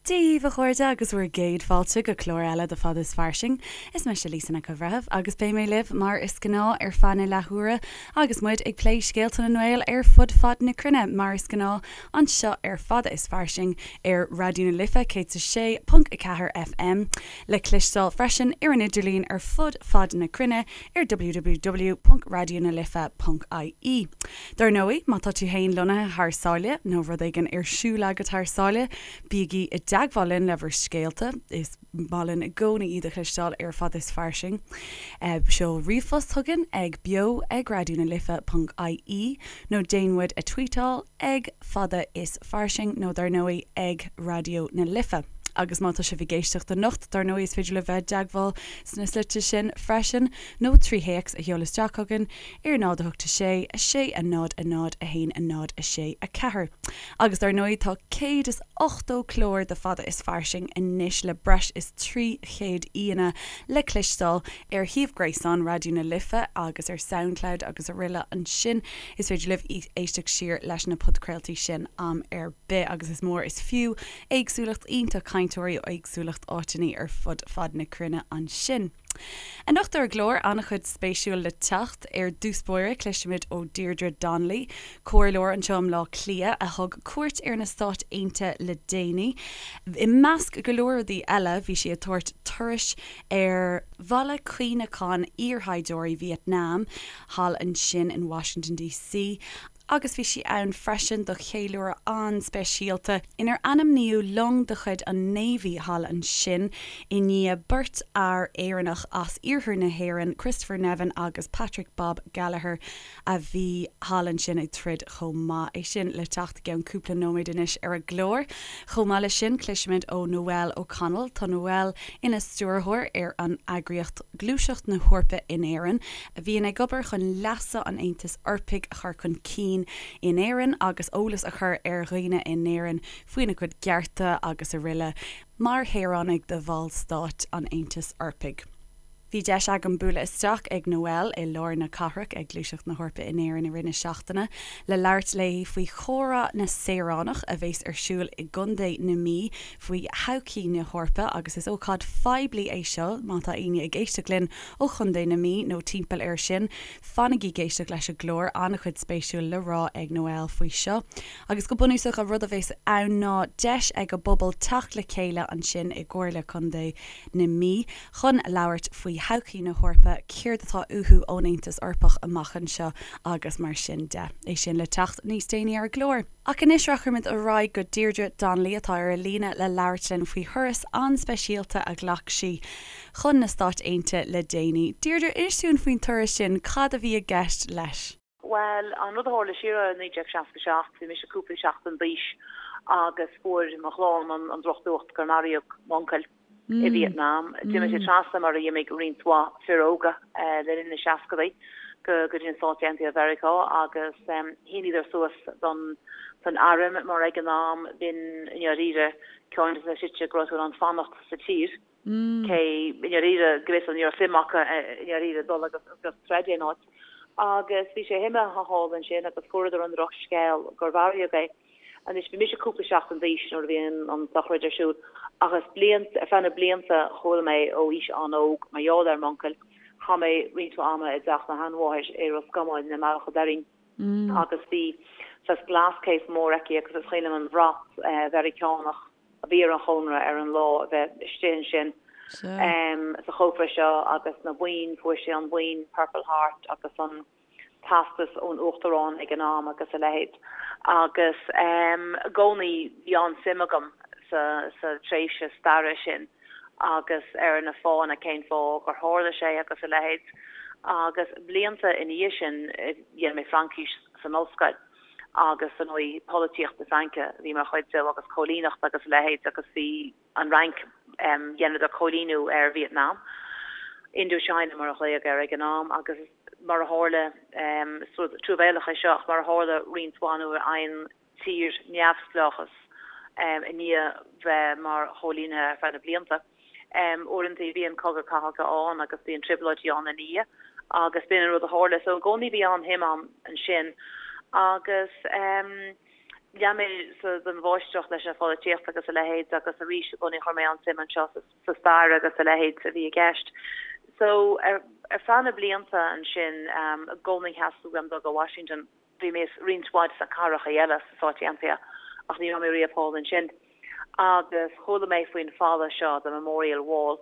Dia dhaoibh a chairde agus bhur gcéad fáilte go clár eile de Fada is Fairsing. Is mise Lisa Nic an Bhreithimh agus beidh mé libh mar is gnáth ar feadh na leathuaire agus muid ag plé scéalta na nGael ar fud fad na cruinne mar is gnáth anseo ar Fada is Fairsing ar Raidió na Life 106.4 FM le cloisteáil freisin ar an idirlíon ar fud fad na cruinne ar www.raidionalife.ie. Dar ndóigh, má tá tú fhéin lonnaithe thar sáile, nó rud éigin ar siúl agat thar sáile, bígí i dteagmháil linn le bhur scéalta, is maith linn i gcónaí iad a chloisteáil ar Fada is Fairsing. Seol ríomhphost chugainn ag beo ag raidionalife.ie nó déan muid a tweetáil ag Fada is Fairsing nó dar ndóigh ag Raidió na Life. Agus má tá sibh ag éisteacht anocht, dar ndóigh is féidir libh bheith i dteagmháil sna slite sin freisin, nó trí théacs a sheoladh isteach chugainn ar 0 8 6 6 0 0 1 0 6 4. Agus dar ndóigh tá 180 clár de Fada is Fairsing anois le breis is 300 aíonna le cloisteáil ar shuíomh gréasáin Raidió na Life agus ar Soundcloud agus aroile ansin. Is féidir libh éisteacht siar leis na podchraoltaí sin am ar bith agus is mór is fiú éagsúlacht iontach cainteoirí ó éagsúlacht áiteanna ar fud fad na cruinne ansin. Anocht ar an gclár, an-chuid spéisiúil le teacht. Ar dtús báire, cloisfimid ó Deirdre Donnelly, comhairleoir anseo i mBleá Cliath a thug cuairt ar na Stáit Aontaithe le déanaí. I measc go leor rudaí eile, bhí sí ag tabhairt turais ar bhaile cuimhneacháin iarshaighdiúirí Vietnam thall ansin in Washington DC. agus bhí sí ann freisin do cheiliúradh an-speisialta inar ainmníodh long de chuid an Navy thall ansin i ndiaidh beirt fhear Éireannach as iarthar na hÉireann, Christopher Nevin agus Patrick Bob Gallagher, a bhí thall ansin ag troid chomh maith. É sin le teacht i gceann cúpla nóiméad anois ar an gclár. Chomh maith leis sin, cloisfimid ó Noelle O'Connell. Tá Noelle ina stiúrthóir ar an eagraíocht Gluaiseacht na hEorpa in Éirinn, a bhíonn ag obair chun leasa an Aontais Eorpaigh a chur chun cinn in Éirinn agus eolas a chur ar dhaoine in Éirinn faoina gcuid cearta agus aroile mar shaoránaigh de bhallstáit an Aontais Eorpaigh. Bhí deis agam bualadh isteach ag Noelle i lár na cathrach ag Gluaiseacht na hEorpa in Éirinn i rith na seachtaine le labhairt léi faoi Chomhrá na Saoránach a bheas ar siúl i gContae na Mí faoi thodhchaí na hEorpa agus is ócáid phoiblí é seo má tá éinne ag éisteacht linn ó Chontae na Mí nó timpeall air sin, fanaigí ag éisteacht leis an gclár, an-chuid spéisiúil le rá ag Noelle faoi seo. Agus go bunúsach an rud a bheas ann ná deis ag an bpobal teacht le chéile ansin i gComhairle Contae na Mí chun labhairt faoi thodhchaí na hEorpa, céard atá uathu ón Aontas Eorpach amach anseo agus mar sin de. É sin le teacht níos déanaí ar an gclár. Ach anois rachaimid ar aghaidh go Deirdre Donnelly atá ar an líne le labhairt linn faoi thuras an-speisialta a ghlac sí chun na Stáit Aontaithe le déanaí. Deirdre, inis dúinn faoin turas sin, cad a bhí i gceist leis? Bhuel, an rud a tharla siar i 1967, bhí mise cúpla seachtain d'aois agus fuair mo chlann an drochnuacht gur maraíodh m'uncail. i Vietnam. D'imigh sé trasna mar a d'imigh roinnt mhaith fir óga le linn na seascadaí go dtí na Stáit Aontaithe Mheiriceá agus shíníodar suas don don arm mar ag an am b'in i ndáiríre ceann de na slite go raibh tú in ann fanacht sa tír cé i ndáiríre go bhfios ní raibh suim acu i ndáiríre dul agus agus troid aon áit. Agus bhí sé imithe thall ansin agus fuaireadar an drochscéal gur mharaíodh é. Anois, bhí mise cúpla seachtain d'aois nuair a bhí an tsochraid ar siúl, ach is blianta, ar feadh na blianta, chuala mé ó aois an-óg, mar gheall ar m'uncail, chaith mé roinnt mhaith ama i dteach mo sheanmháthair i Ros Comáin, i mBealach an Doirín, agus bhí saghas glass case mór aici agus is cuimhin liom an bhrat Mheiriceánach a bhí ar an chónra ar an lá a bheith istigh ansin sa chófra seo agus na boinn, fuair sé an boinn Purple Heart agus an. teastas ón Uachtarán ag an am agus a leithéid. Agus i gcónaí bhí an-suim agam sa sa tréimhse staire sin agus ar na fáthanna cén fáth gur tharla sé agus a leithéid. Agus blianta ina dhiaidh sin dhein mé Fraincis san ollscoil agus ar ndóigh polaitíocht na Fraince a bhí mar chuid de agus cóilíneacht agus a leithéid agus bhí an Fhrainc, dheineadar cóilíniú ar Vietnam, Indochina mar a ghlaodh air ag an am, agus mar a tharla, is rud truamhéalach é seo, ach mar a tharla roinnt mhaith nuair a fhaigheann tír neamhspleáchas i ndiaidh bheith mar chóilínithe ar feadh na blianta, uaireanta bíonn cogadh cathartha ann agus bíonn trioblóidí ann ina dhiaidh agus b'in an rud a tharla. So i gcónaí bhí an-shuim a'm ansin agus. Lean mé den mháistreacht leis an pholaitíocht agus a leithéid agus arís i gcónaí chuir mé an-suim anseo sa stair agus a leithéid a bhí i gceist. So ar feadh na blianta ansin i gcónaí theastaigh uaim dul go Washington. Bhí mé roinnt mhaith de na cathracha eile sna Stáit Aontaithe ach ní raibh mé riamh thall ansin. Agus chuala mé faoin falla seo, the Memorial Wall.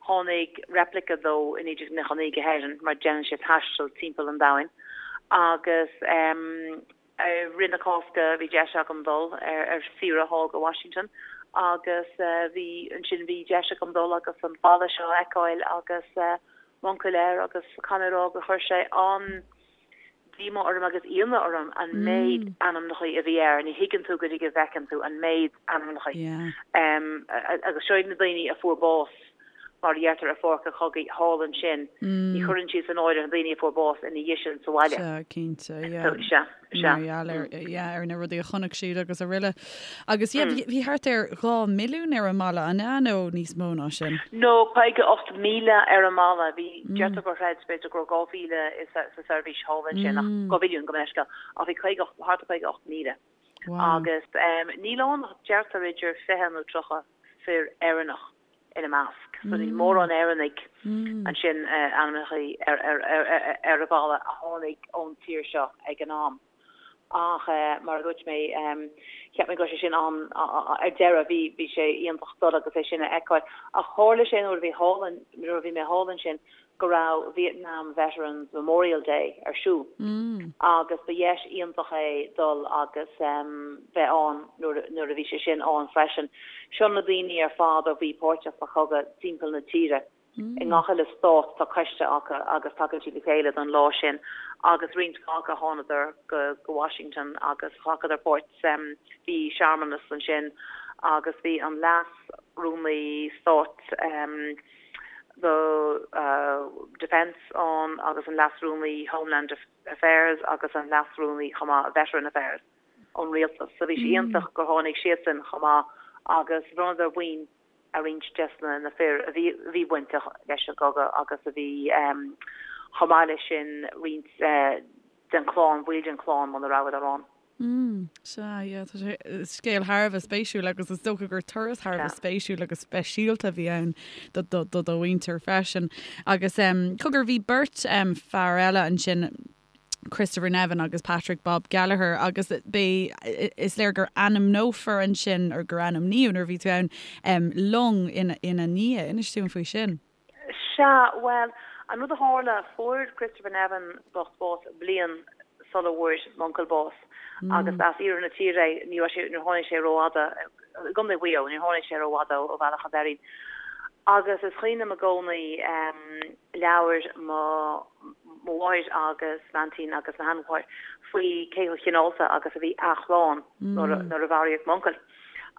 Tháinig replica dó i 1999 go hÉirinn mar déanann sé taisteal timpeall an domhain agus I rith na Cásca bhí deis agam dul ar saoire thall go Washington agus bhí ansin bhí deis agam dul agus an falla seo a fheiceáil agus m'uncail air agus caithfidh mé a rá gur chuir sé an-díomá orm agus ionadh orm an méid ainmneacha a bhí air. Ní thuigeann tú go dtí go bhfeiceann tú an méid ainmneacha. Agus seo iad na daoine a fuair bás mar a deirtear ar pháirc an chogaidh thall ansin, ní chuireann siad san áireamh na daoine a fuair bás ina dhiaidh sin sa bhaile. Sea, cinnte, yeah. So, sea, sea. Mar gheall ar, yeah, ar na rudaí a chonaic siad agus araile. Agus, yeah, bhí, bhí thart ar 2 mhilliún ar an mballa, an ea, nó níos mó ná sin? No, 58,000 ar an mballa. Bhí, deirtear gur chreid, b'fhéidir go raibh 2,000 sa seirbhís thall ansin, ach 2 mhilliún, gabh mo leithscéal, ach bhí 58, thart ar 58,000. Wow. Agus níl ann ach deirtear idir 20 nó 30 fir Éireannach ina measc. So níl mórán Éireannaigh ansin ainmnithe ar an bhalla a tháinig ón tír seo ag an am. Ach mar a dúirt mé, cheap mé go raibh sé sin an, ar deireadh bhí bhí sé iontach dul agus é sin a fheiceáil. Ach tharla sé nuair a bhí thall, nuair a bhí mé thall ansin go raibh Vietnam Veterans Memorial Day ar siúl agus ba dheis iontach é dul agus bheith ann nuair a bhí sé sin ann freisin. Seo na daoine ar fad a bhí páirteach sa chogadh timpeall na tíre. I ngach uile stát tá coiste acu agus tagann siad le chéile don lá sin agus roinnt mhaith acu thánadar go Washington agus ghlacadar páirt. Bhí searmanas ansin agus bhí an Leas-Rúnaí Stáit, do Defence ann agus an Leas-Rúnaí Homeland Affairs agus an Leas-Rúnaí chomh maith Veteran Affairs ón rialtas. So bhí sé iontach gur tháinig siadsan chomh maith agus bhronnadar boinn ar roinnt des na fir a bhí a bhí bainteach leis an gcogadh agus a bhí chomh maith leis sin roinnt den chlann, baill den chlann muna rabhadar ann. Mm, sea, yeah, tá sé, scéal thar a bheith spéisiúil agus is dócha gur turas thar a bheith spéisiúil agus speisialta a bhí ann do, do, do do mhuintir freisin. Agus em, cogar, bhí beirt em, fear eile ansin, Christopher Nevin agus Patrick Bob Gallagher agus b'é, is léir gur ainmneofar ansin, or gur ainmníodh nuair a bhí tú ann, em, long ina, ina ndiaidh. Inis dúinn faoi sin. Sea, bhuel, an rud a tharla, fuair Christopher Nevin bocht bás bliain sula bhfuair m'uncail bás agus as iarthar na tíre é, ní raibh sé, níor tháinig sé rófhada, i gContae Mhaigh Eo, níor tháinig sé rófhada ó Bhealach an Doirín. Agus is cuimhin liom i gcónaí labhair mo mo mháthair agus m'aintín agus mo sheanmháthair faoi cé chomh cineálta agus a bhí a chlann nuair a nuair a mharaíodh m'uncail.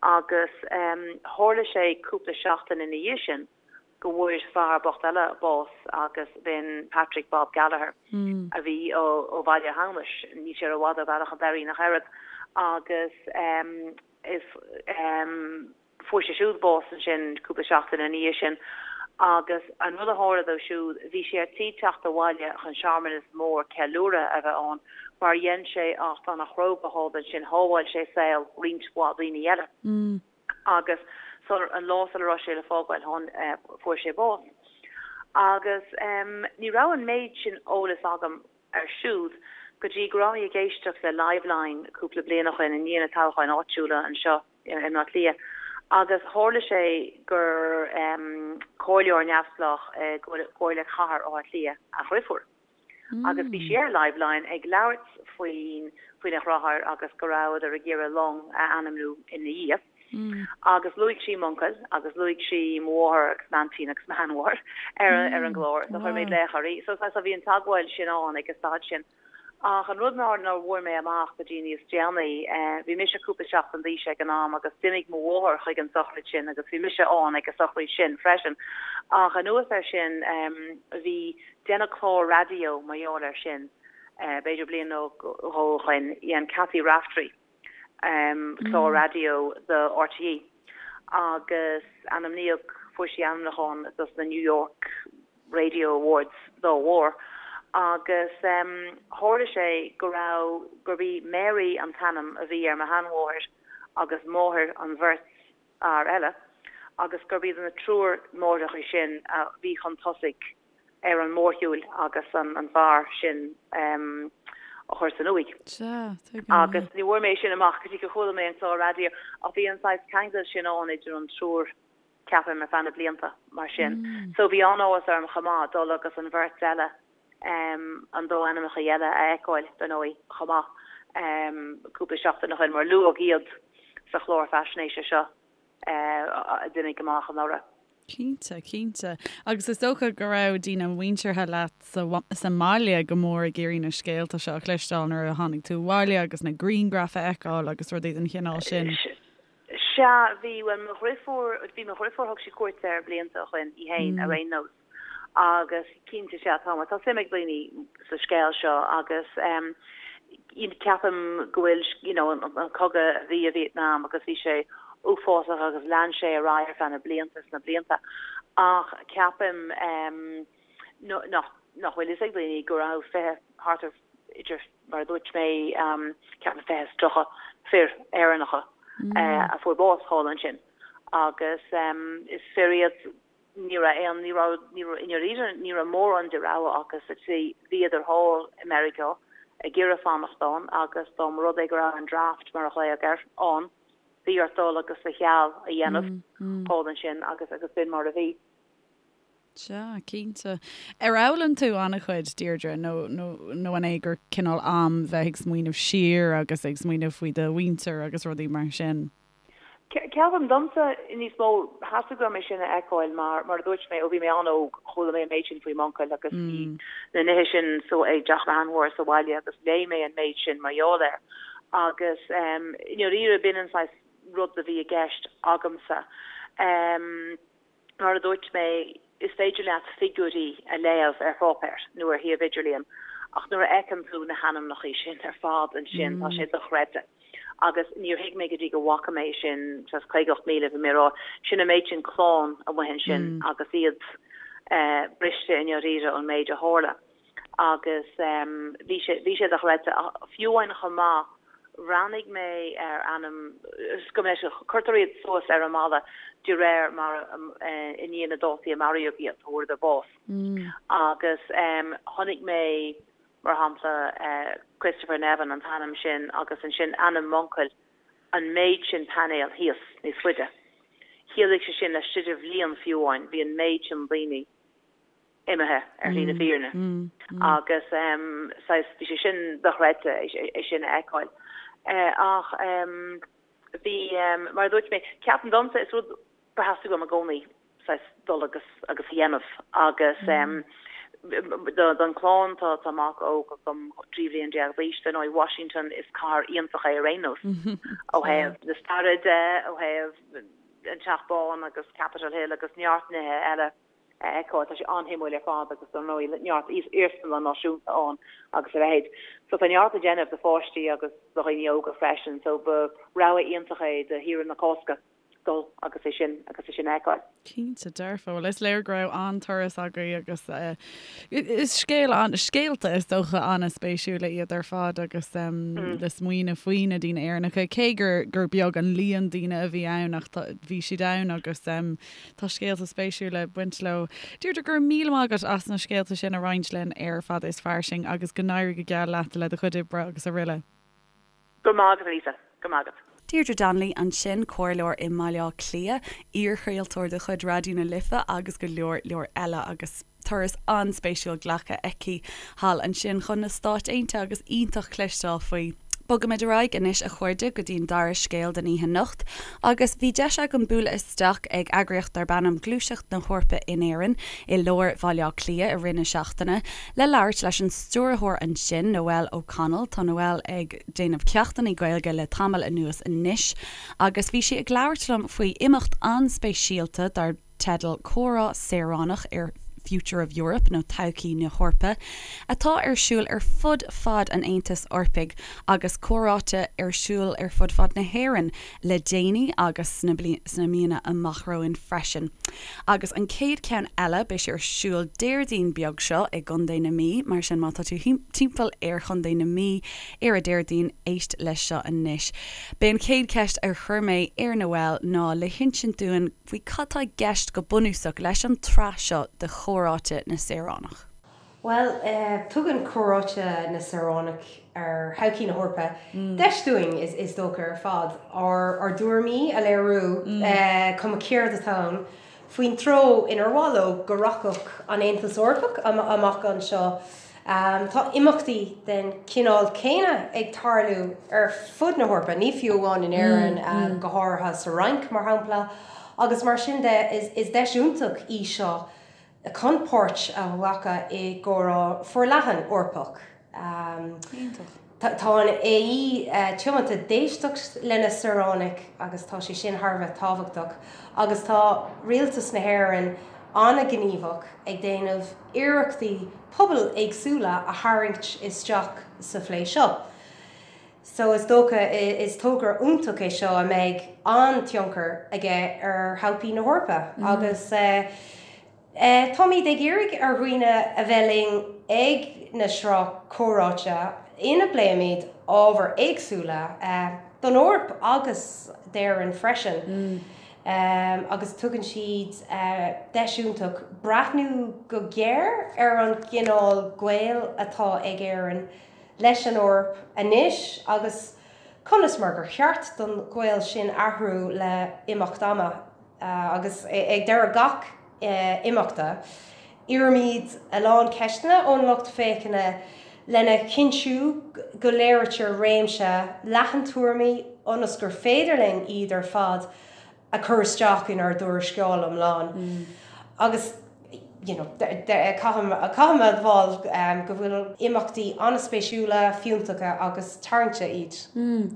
Agus tharla sé cúpla seachtain ina dhiaidh sin, go bhfuair fear bocht eile bás agus b'in Patrick Bob Gallagher a bhí ó Bhaile Hamhnais, níl sé rófhada ó Bhealach an Doirín ach oiread, agus is fuair sé siúd bás ansin cúpla seachtain ina dhiaidh sin agus an rud a tharla dó siúd, bhí sé ar tí teacht abhaile chun searmanas mór ceiliúrtha a bheith ann mar dhein sé acht an-chróga thall ansin, shábháil sé saol roinnt mhaith daoine eile. agus sular, an lá sula raibh sé le fágáil thán, fuair sé bás. Agus ní raibh an méid sin eolas agam air siúd go dtí go raibh mé ag éisteacht le Liveline cúpla bliain ó shin i ndiaidh na toghcháin áitiúla anseo i mBleá Cliath agus tharla sé gur comhairleoir neamhspleách i gComhairle Chathair Átha Cliath a dhriofúr. Agus bhí sí ar Liveline ag labhairt faoin faoina dheartháir agus go rabhadar ag iarraidh long a ainmniú ina dhiaidh. Agus luaigh sí m'uncail agus luaigh sí mo mháthair agus m'aintín agus mo sheanmháthair ar ar an gclár. So chuir mé glaoch uirthi. So so bhí an teagmháil sin ann ag an staid sin. Ach an rud nár nár bhfuair mé amach go dtí níos déanaí, bhí mise cúpla seachtain d'aois ag an am agus d'imigh mo mháthair chuig an sochraid sin agus bhí mise ann ag an sochraid sin freisin. Ach anuas air sin, bhí, deineadh clár raidió mar gheall air sin, b'fhéidir bliain nó dhó ó shoin, dhein Cathy Raftery clár raidió do RTÉ agus ainmníodh, fuair sí ainmniúchán dos na New York, Radio Awards dá bharr. Agus tharla sé go raibh, gurb í Mary an t-ainm a bhí ar mo sheanmháthair agus máthair an bheirt fhear eile, agus gurb iad na triúr máithreacha sin a bhí chun tosaigh ar an mórshiúil agus an fear sin a chur san uaigh. Sea, tuigim, Agus ní bhfuair mé sin amach go dtí gur chuala mé an clár raidió, ach bhí an saghas ceangal sin ann idir an triúr. ceapaim, ar feadh na blianta mar sin. So bhí an-áthas orm chomh maith dul agus an bheirt eile, an dá ainmneacha eile a fheiceáil, dar ndóigh, chomh maith, cúpla seachtain ó shin, mar luadh iad sa chlár faisnéise seo a d'imigh amach anuraidh. Cinnte, cinnte. Agus is dócha go raibh daoine muinteartha leat sa sa mbaile go mór ag iarraidh na scéalta seo a chloisteáil nuair a tháinig tú abhaile agus na grianghraif a fheiceáil agus rudaí den chineál sin. Sea, bhí, bhuel, mo dhriofúr, bhí mo dhriofúr, thug sí cuairt air blianta ó shoin, í fhéin, ar aon nós, agus cinnte, sea, tá, mar tá suim ag daoine sa scéal seo agus em, ceapaim go bhfuil, you know, an cogadh a bhí i Vietnam agus bhí sé uafásach agus lean sé ar aghaidh ar feadh na blianta is na blianta ach ceapaim em, nach, nach bhfuil fhios ag daoine go raibh 20, thart ar idir mar a dúirt mé, ceapaim 20 is 30 fir Éireannacha a fuair bás thall ansin agus is fir iad, ní raibh aon, ní raibh, ní raibh, i ndáiríre ní raibh mórán de rogha acu sa tslí, bhíodar thall i Meiriceá ag iarraidh fanacht ann agus dá mba rud é go raibh an draft, mar a ghlaodh air, ann, bhí ort dul agus do sheal a dhéanamh thall ansin agus agus b'in mar a bhí. Sea, cinnte. Ar fhoghlaim tú an-chuid, Deirdre, nó, nó, nó an é gur cineál am bheith ag smaoineamh siar agus ag smaoineamh faoi do mhuintir agus rudaí mar sin? Ceapaim, domsa, níos mó, theastaigh uaim é sin a fheiceáil mar, mar a dúirt mé, ó bhí mé an-óg, chuala mé an méid sin faoi m'uncail agus bhí na nithe sin so ag teach mo sheanmháthar sa bhaile agus léigh mé an méid sin mar gheall air. Agus i ndáiríre, b'in an saghas rud a bhí i gceist agamsa. Mar a dúirt mé, is féidir leat figiúirí a léamh ar pháipéar nó ar shuíomh idirlíon ach nuair a fheiceann tú na hainmneacha sin ar fad ansin, tá sé dochreidte. Agus níor thuig mé go dtí go bhfaca mé sin, saghas 58,000, bhí mé ag rá, sin an méid sin clann amuigh ansin agus iad briste i ndáiríre ón méid a tharla. agus bhí sé, bhí sé dochreidte. Fiú amháin chomh maith, bhreathnaigh mé ar ainm, go mbeidh sé, cuirtear iad suas ar an mballa de réir mar i ndiaidh na dátaí a maraíodh iad, a fuaireadar bás. Agus chonaic mé, mar shampla, Christopher Nevin, an t-ainm sin, agus ansin ainm m'uncail, an méid sin painéal thíos níos faide. Chiallaigh sé sin laistigh de bhliain fiú amháin, bhí an méid sin daoine. imithe ar shlí na fírinne agus saghas bhí sé sin dochreidte é sin a fheiceáil. Ach bhí, mar a dúirt mé, ceapaim domsa is rud gur theastaigh uaim i gcónaí saghas dul agus agus a dhéanamh agus don chlann tá tá mac óg agam 13 bhliain d'aois, dar ndóigh Washington is cathair iontach é ar aon nós ó thaobh na staire de, ó thaobh an Teach Bán agus Capitol Hill agus neart nithe eile. a fheiceáil. Tá sé an-shuimiúil ar fad agus dar ndóigh neart iarsmalann náisiúnta ann agus a leithéid. So tá neart le déanamh do pháistí agus do dhaoine óga freisin so ba rogha iontach é do shaoire na Cásca dul agus é sin agus é sin a fheiceáil. Cinnte dearfa. Bhuel is léir go raibh an-turas agaibh agus is scéal an, scéalta is dócha an-spéisiúla iad ar fad agus le smaoineamh faoi na daoine Éireannacha cé gur gur beag an líon daoine a bhí ann ach tá, bhí siad ann agus Tá scéalta spéisiúla ag baint leo. Deirdre, go raibh míle maith agat as na scéalta sin a roinnt linn ar Fada is Fairsing agus go n-éirí go geal leat le do chuid oibre agus araile. Go raibh maith agat, a Lisa. Go raibh maith agat. Deirdre Donnelly ansin, comhairleoir i mBaile Átha Cliath, iarchraoltóir de chuid Raidió na Life agus go leor leor eile agus turas an-spéisiúil glactha aici thall ansin chun na Stáit Aontaithe agus iontach cloisteáil faoi. Bogaimid ar aghaidh anois a chairde go dtí an dara scéal den oíche anocht agus bhí deis agam bualadh isteach ag eagraíocht darb ainm Gluaiseacht na hEorpa in Éirinn i lár Bhaile Átha Cliath i rith na seachtaine le labhairt leis an stiúrthóir ansin, Noelle O'Connell. Tá Noelle ag déanamh ceachtanna Gaeilge le tamall anuas anois agus bhí sí ag labhairt liom faoi imeacht an-speisialta dar teideal Comhrá Saoránach ar. Future of Europe nó Todhchaí na hEorpa, atá ar siúl ar fud fad an Aontais Eorpaigh agus comhráite ar siúl ar fud fad na hÉireann le déanaí agus sna míonna amach romhainn freisin. Agus an chéad cheann eile, beidh sé ar siúl Déardaoin beag seo i gContae na Mí, mar sin má tá tú timpeall ar Chontae na Mí ar an Déardaoin, éist leis seo anois. B'é an chéad cheist a chuir mé ar Noelle ná le hinsint dúinn faoi cad tá i gceist go bunúsach leis an tsraith seo de Chomhráite na Saoránach. Bhuel, tugann Comhráite na Saoránach ar Thodhchaí na hEorpa deis dúinn, is dócha, ar fad, ár dtuairimí a léiriú, cuma céard atá ann, faoin treo inar mhaith leo go rachadh an Aontas Eorpach amach anseo. Tá imeachtaí den chineál céanna ag tarlú ar fud na hEorpa, ní fiú amháin in Éirinn, go háirithe sa Fhrainc, mar shampla, agus mar sin de, is deis iontach í seo chun páirt a ghlacadh i gcomhrá forleathan Eorpach. Tá an AE tiomanta d'éisteacht lena saoránaigh agus tá sé sin thar a bheith tábhachtach agus tá Rialtas na hÉireann an-ghníomhach ag déanamh iarrachtaí pobail éagsúla a tharraingt isteach sa phlé seo. So is dócha is togra iontach é seo a mbeidh an-tionchar aige ar thodhchaí na hEorpa agus táimid ag iarraidh ar dhaoine a bheith linn ag na sraith comhráite ina bpléimid ábhair éagsúla don Eoraip agus d'Éirinn freisin agus tugann siad deis iontach breathnú go géar ar an gcineál gaoil atá ag Éirinn leis an Eoraip anois agus conas mar gur cheart don ghaol sin athrú le himeacht ama. Agus ag deireadh gach imeachta, iarraimid a lán ceisteanna ón lucht féachana lena chinntiú go léirítear réimse leathan tuairimí ionas gur féidir linn iad ar fad a chur isteach inár dtuarascáil iomlán. Agus you know caithfidh mé a admháil go bhfuil imeachtaí an-spéisiúla, fiúntacha agus tarraingte iad.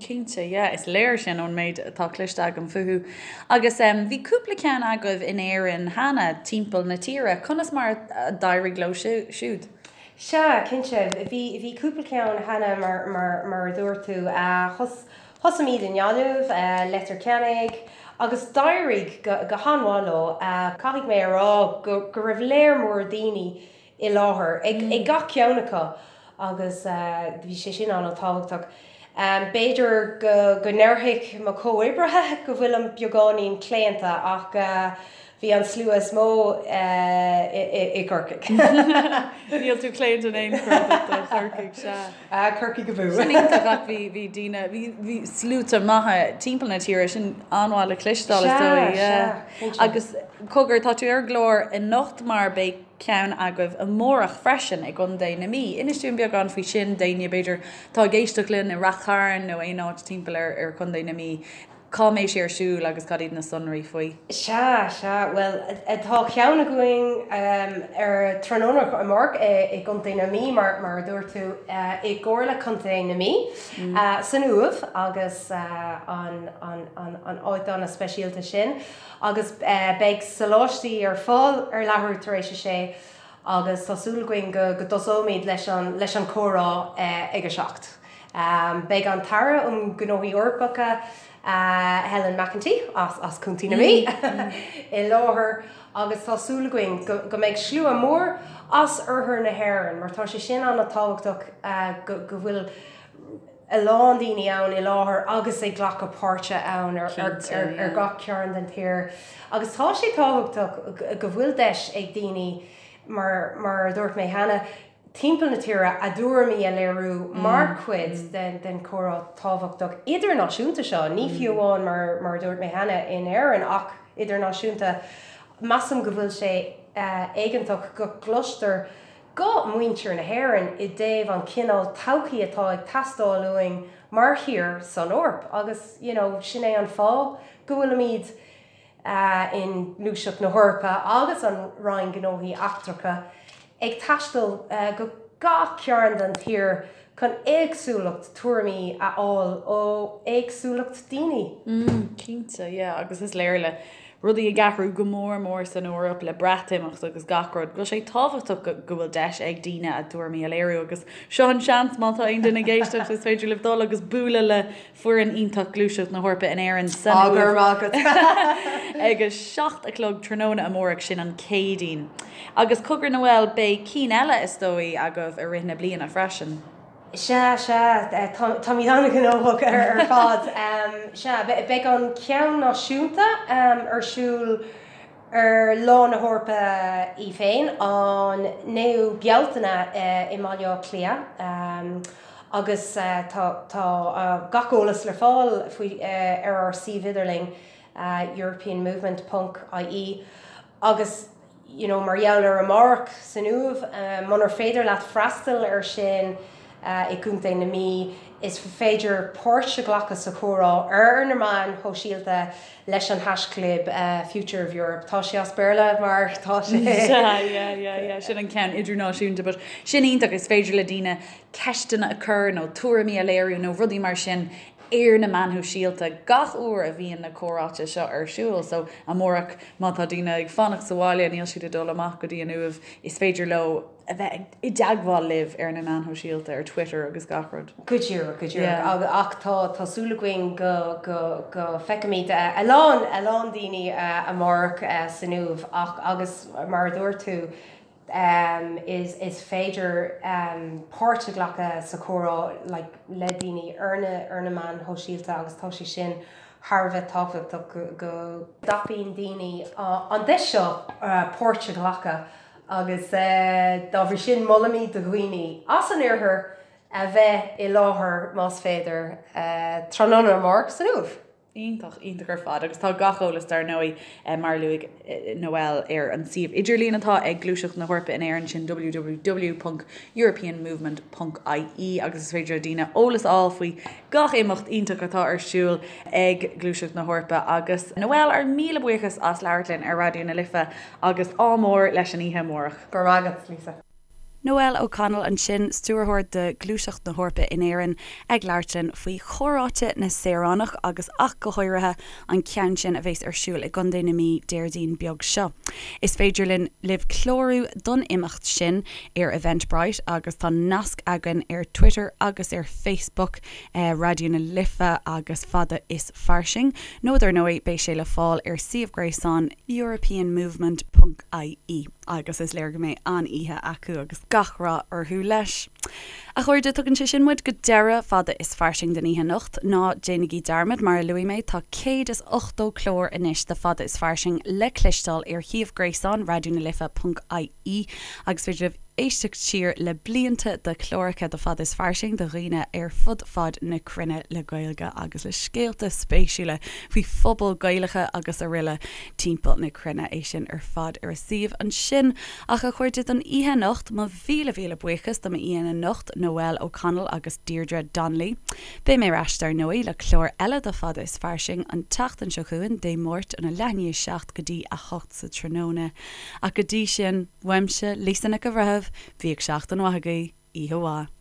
Cinnte, yeah, is léir sin ón méid atá cloiste agam fúthu. Agus bhí cúpla ceann agaibh in Éirinn cheana, timpeall na tíre, conas mar a d'éirigh leo siúd? Sea, cinnte, bhí cúpla ceann cheana mar a dúirt tú. Thosaímid i nGaillimh, Leitir Ceanainn, agus d'éirigh go han-mhaith leo. Caithfidh mé a rá go raibh léar mór daoine i láthair ag gach ceann acu agus bhí sé sin an-tábhachtach. B'fhéidir go ndéarfadh mo chomhoibrithe go bhfuilim beagáinín claonta ach Bhí an slua is mó i gCorcaigh. Níl tú claonta in aon chor do Chorcaigh, sea. Corcaigh abú. Sin iontach ach bhí bhí daoine, bhí bhí sluaite maithe timpeall na tíre, sin an-mhaith le cloisteáil is dóigh. Sea, sea, cinnte. Agus cogar, tá tú ar an gclár anocht mar beidh ceann agaibh amárach freisin i gContae na Mí. Inis dúinn beagán faoi sin d'éinne b'fhéidir atá ag éisteacht linn i Rath Chairn nó aon áit timpeall ar ar Chontae na Mí. Cá mbeidh sé ar siúl agus cad iad na sonraí faoi? Sea, sea, bhuel, tá ceann againn ar tráthnóna amárach i gContae na Mí, mar a dúirt tú, i gComhairle Contae na Mí, san Uaimh agus an áit an-speisialta sin. Agus beidh soláistí ar fáil ar leathuair tar éis a sé agus tá súil againn go dtosóimid leis an chomhrá ag a 7. Beidh an tAire um Ghnóthaí Eorpacha, Helen McEntee, as Contae na Mí, i láthair agus tá súil againn go mbeidh slua mór as oirthear na hÉireann mar tá sé sin an-tábhachtach go bhfuil a lán daoine ann i láthair agus ag glacadh páirte ann ar gach cearn den tír. Agus tá sé tábhachtach go bhfuil deis ag daoine, mar a dúirt mé cheana, timpeall na tíre a dtuairimí a léiriú mar chuid den chomhrá tábhachtach idirnáisiúnta seo, ní fiú amháin mar a dúirt mé cheana in Éirinn ach idirnáisiúnta. Measaim go bhfuil sé éigeantach go gcloistear guth muintir na hÉireann i dtaobh an cineál todhchaí atá ag teastáil uainn mar thír san Eoraip agus you know sin é an fáth go bhfuilimid i nGluaiseacht na hEorpa agus an Roinn Gnóthaí Eachtracha ag taisteal go gach cearn den tír chun éagsúlacht tuairimí a fháil ó éagsúlacht daoine. Cinnte, yeah, agus is léir le. rudaí ag athrú go mór mór san Eoraip le Breatimeacht agus gach rud, go bhfuil sé tábhachtach go bhfuil deis ag daoine a dtuairimí a léiriú agus seo an seans má tá aon duine ag éisteacht is féidir libh dul agus bualadh le foireann iontach Gluaiseacht na hEorpa in Éirinn san Uaimh ag a 7 a chlog tráthnóna amárach, sin an Céadaoin. Agus cogar Noel, beidh cinn eile is dóigh agaibh i rith na bliana freisin. Sea, sea, táimid an-ghnóthach ar fad. Sea, beidh an ceann náisiúnta ar siúl ar Lá na hEorpa í féin, an 9ú Bealtaine i mBaile Átha Cliath agus tá gach eolas le fáil faoi ar ár suíomh idirlín europeanmovement ponc ie agus you know mar gheall ar amárach san Uaimh, munar féidir leat freastal ar sin i gContae na Mí, is féidir páirt a ghlacadh sa chomhrá ar na meáin shóisialta leis an haischlib Future of Europe. Tá sé as Béarla mar tá sé. Yeah, yeah, yeah, yeah, sin an ceann idirnáisiúnta but sin iontach, is féidir le daoine ceisteanna a chur nó tuairimí a léiriú nó rudaí mar sin ar na meáin shóisialta gach uair a bhíonn na comhráite seo ar siúl. So amárach má tá daoine ag fanacht sa bhaile, níl siad ag dul amach go dtí an Uaimh, is féidir leo a bheith i dteagmháil libh ar na meáin shóisialta, ar Twitter agus gach rud. Go díreach, go díreach. Ach tá tá súil againn go go go feicfimid a lán a lán daoine amárach san Uaimh ach agus mar a dúirt tú, is is féidir páirt a ghlacadh sa chomhrá like le daoine ar na ar na meáin shóisialta agus tá sé sin thar a bheith tábhachtach go go dtapaíonn daoine an deis seo páirt a ghlacadh agus dá bhrí sin molaimid do dhaoine as an oirthear a bheith i láthair más féidir tráthnóna amárach san Uaimh. Iontach, iontach ar fad agus tá gach eolas dar ndóigh mar a luaigh Noel ar an suíomh idirlín atá ag Gluaiseacht na hEorpa in Éirinn, sin www.europeanmovement.ie agus is féidir le daoine eolas a fháil faoi gach imeacht iontach atá ar siúl ag Gluaiseacht na hEorpa agus Noel, ár míle buíochas as labhairt linn ar Raidió na Life agus ádh mór leis an oíche amárach. Go raibh maith agat, Lisa. Noel O'Connell ansin, Stiúrthóir de Ghluaiseacht na hEorpa in Éirinn, ag labhairt linn faoi Chomhráite na Saoránach agus ach go háirithe an ceann sin a bheas ar siúl i gContae na Mí Déardaoin beag seo. Is féidir linn libh clárú don imeacht sin ar Eventbrite agus tá nasc againn ar Twitter agus ar Facebook Raidió na Life agus Fada is Fairsing nó dar ndóigh beidh sé le fáil ar suíomh gréasáin europeanmovement ponc ie. agus is léir go mbeidh an-oíche acu agus gach rath orthu leis. A chairde, tugann sé sin muid go deireadh Fada is Fairsing den oíche anocht. Ná déanaigí dearmad, mar a luaigh mé, tá 180 clár anois de Fada is Fairsing le cloisteáil ar shuíomh gréasáin Raidió na Life ponc ie agus féidir libh éisteacht siar le blianta de chláracha de Fada is Fairsing do dhaoine ar fud fad na cruinne le Gaeilge agus le scéalta spéisiúla faoi phobail Gaelacha agus aroile. timpeall na cruinne, é sin ar fad ar a suíomh ansin. Ach a chairde, don oíche anocht, mo mhíle mhíle buíochas do m'aíonna anocht, Noel O'Connell agus Deirdre Donnelly. Beidh mé ar ais dar ndóigh le clár eile de Fada is Fairsing an tseachtain seo chugainn, Dé Máirt óna leath i ndiaidh a 7 go dtí a 8 sa tráthnóna. Ach go dtí sin, uaimse, Lisa Nic an Bhreithimh, bíodh seachtain mhaith agaibh, oíche mhaith.